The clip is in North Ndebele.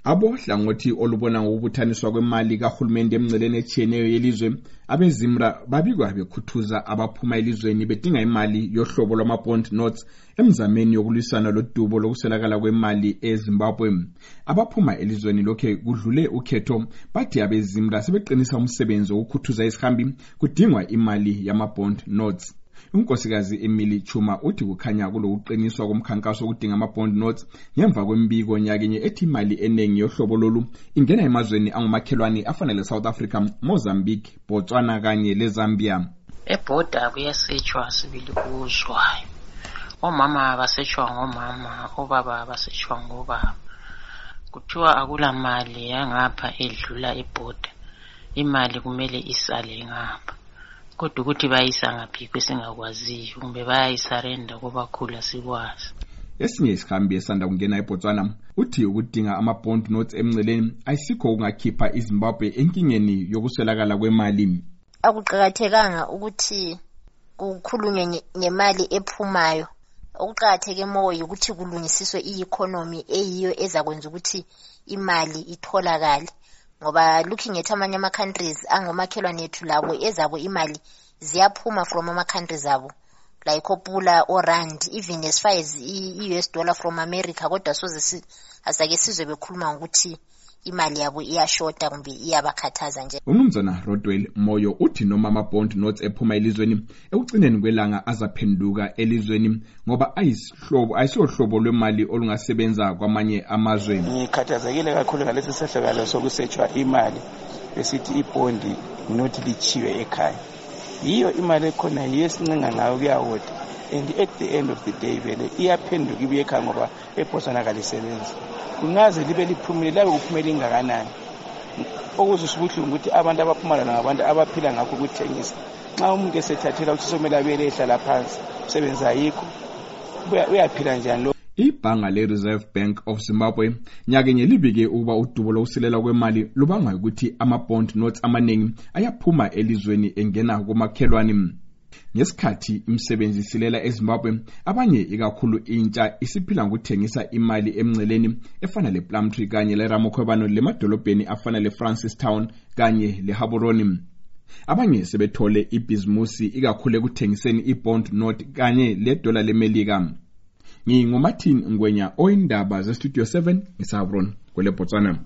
Abohlangothi olubona ngokubuthaniswa kwemali kahulumende emngceleni etshiyeneyo yelizwe abeZimra babikwa bekhuthuza abaphuma elizweni bedinga imali yohlobo lwama-bond notes emzameni yokulwisana lodubo lokuswelakala kwemali eZimbabwe. Abaphuma elizweni lokhe kudlule ukhetho bathi abeZimra sebeqinisa umsebenzi wokukhuthuza isihambi kudingwa imali yama-bond notes. Unkosikazi Emily Chuma uthi kukhanya kulokuqiniswa komkhankaso wokudinga ama-bond notes ngemva kwembiko nyakenye ethi imali enengi yohlobo lolu ingena emazweni angumakhelwane afana le-South Africa, Mozambique, Botswana kanye leZambia. Ebhoda kuyasetshwa sibili kuzwayo. Omama basetshwa ngomama, obaba basetshwa ngobaba. Kuthiwa akula mali yangapha edlula ebhoda. Imali kumele isale ngapha. Kodwa ukuthi bayisa ngaphi kwesingakwaziyo kumbe bayayisarenda kubakhula sikwazi. Esinye isihambi esanda kungena eBotswana uthi ukudinga ama-bond notes emngceleni ayisikho kungakhipha iZimbabwe enkingeni yokuswelakala kwemali. Akuqakathekanga ukuthi kukhulunywe ngemali ephumayo. Okuqakatheke moyo ukuthi kulungisiswe i-economy eyiyo ezakwenza ukuthi imali itholakale. Ngoba looking at amanye ama-countries angomakhelwane ethu labo ezabo imali ziyaphuma from ama-countries abo like opula or rand, even as far as i-US dollar from America, kodwa soze asake sizwe bekhuluma ngokuthi imali yabo iyashota kumbe iyabakhathaza nje. Umnumzana Rodwell Moyo uthi noma ama-bond notes ephuma elizweni ekugcineni kwelanga azaphenduka elizweni ngoba ayisiyohlobo lwemali olungasebenza kwamanye amazwe. Ngikhathazekile kakhulu ngalesi sehlakalo sokusetshwa imali esithi ibondi not lichiwe ekhaya. Yiyo imali ekhona yesincenga ngayo kuyawona, and at the end of the day vele iyaphenduka ibuye ekhaya ngoba eBotswana kalisebenzi. Kungaze libe liphumile labe kuphumela ingakanani. Okuzisho ubuhlungu ukuthi abantu abaphumala ngabantu abaphila ngakho ukuthengisa. Nxa umuntu esethathela ukuthi somele abele ehlala phansi usebenza yikho uyaphila njani lo. Ibhanga le-Reserve Bank of Zimbabwe nyakenye libike ukuba udubo lokusilela kwemali lubangwa ukuthi ama-bond notes amaningi ayaphuma elizweni engena kumakhelwane. Ngesikhathi imisebenzi isilela eZimbabwe, abanye ikakhulu intsha isiphila ngokuthengisa imali emngceleni efana le-Plumtree kanye le-Ramokhwebano lemadolobheni afana le-Francistown kanye le-Gaborone. Abanye sebethole ibhizimusi ikakhulu ekuthengiseni i-bond note kanye le-dollar leMelika. NginguMartin Ngwenya, oyindaba ze-Studio 7 eSavron kwele Botswana.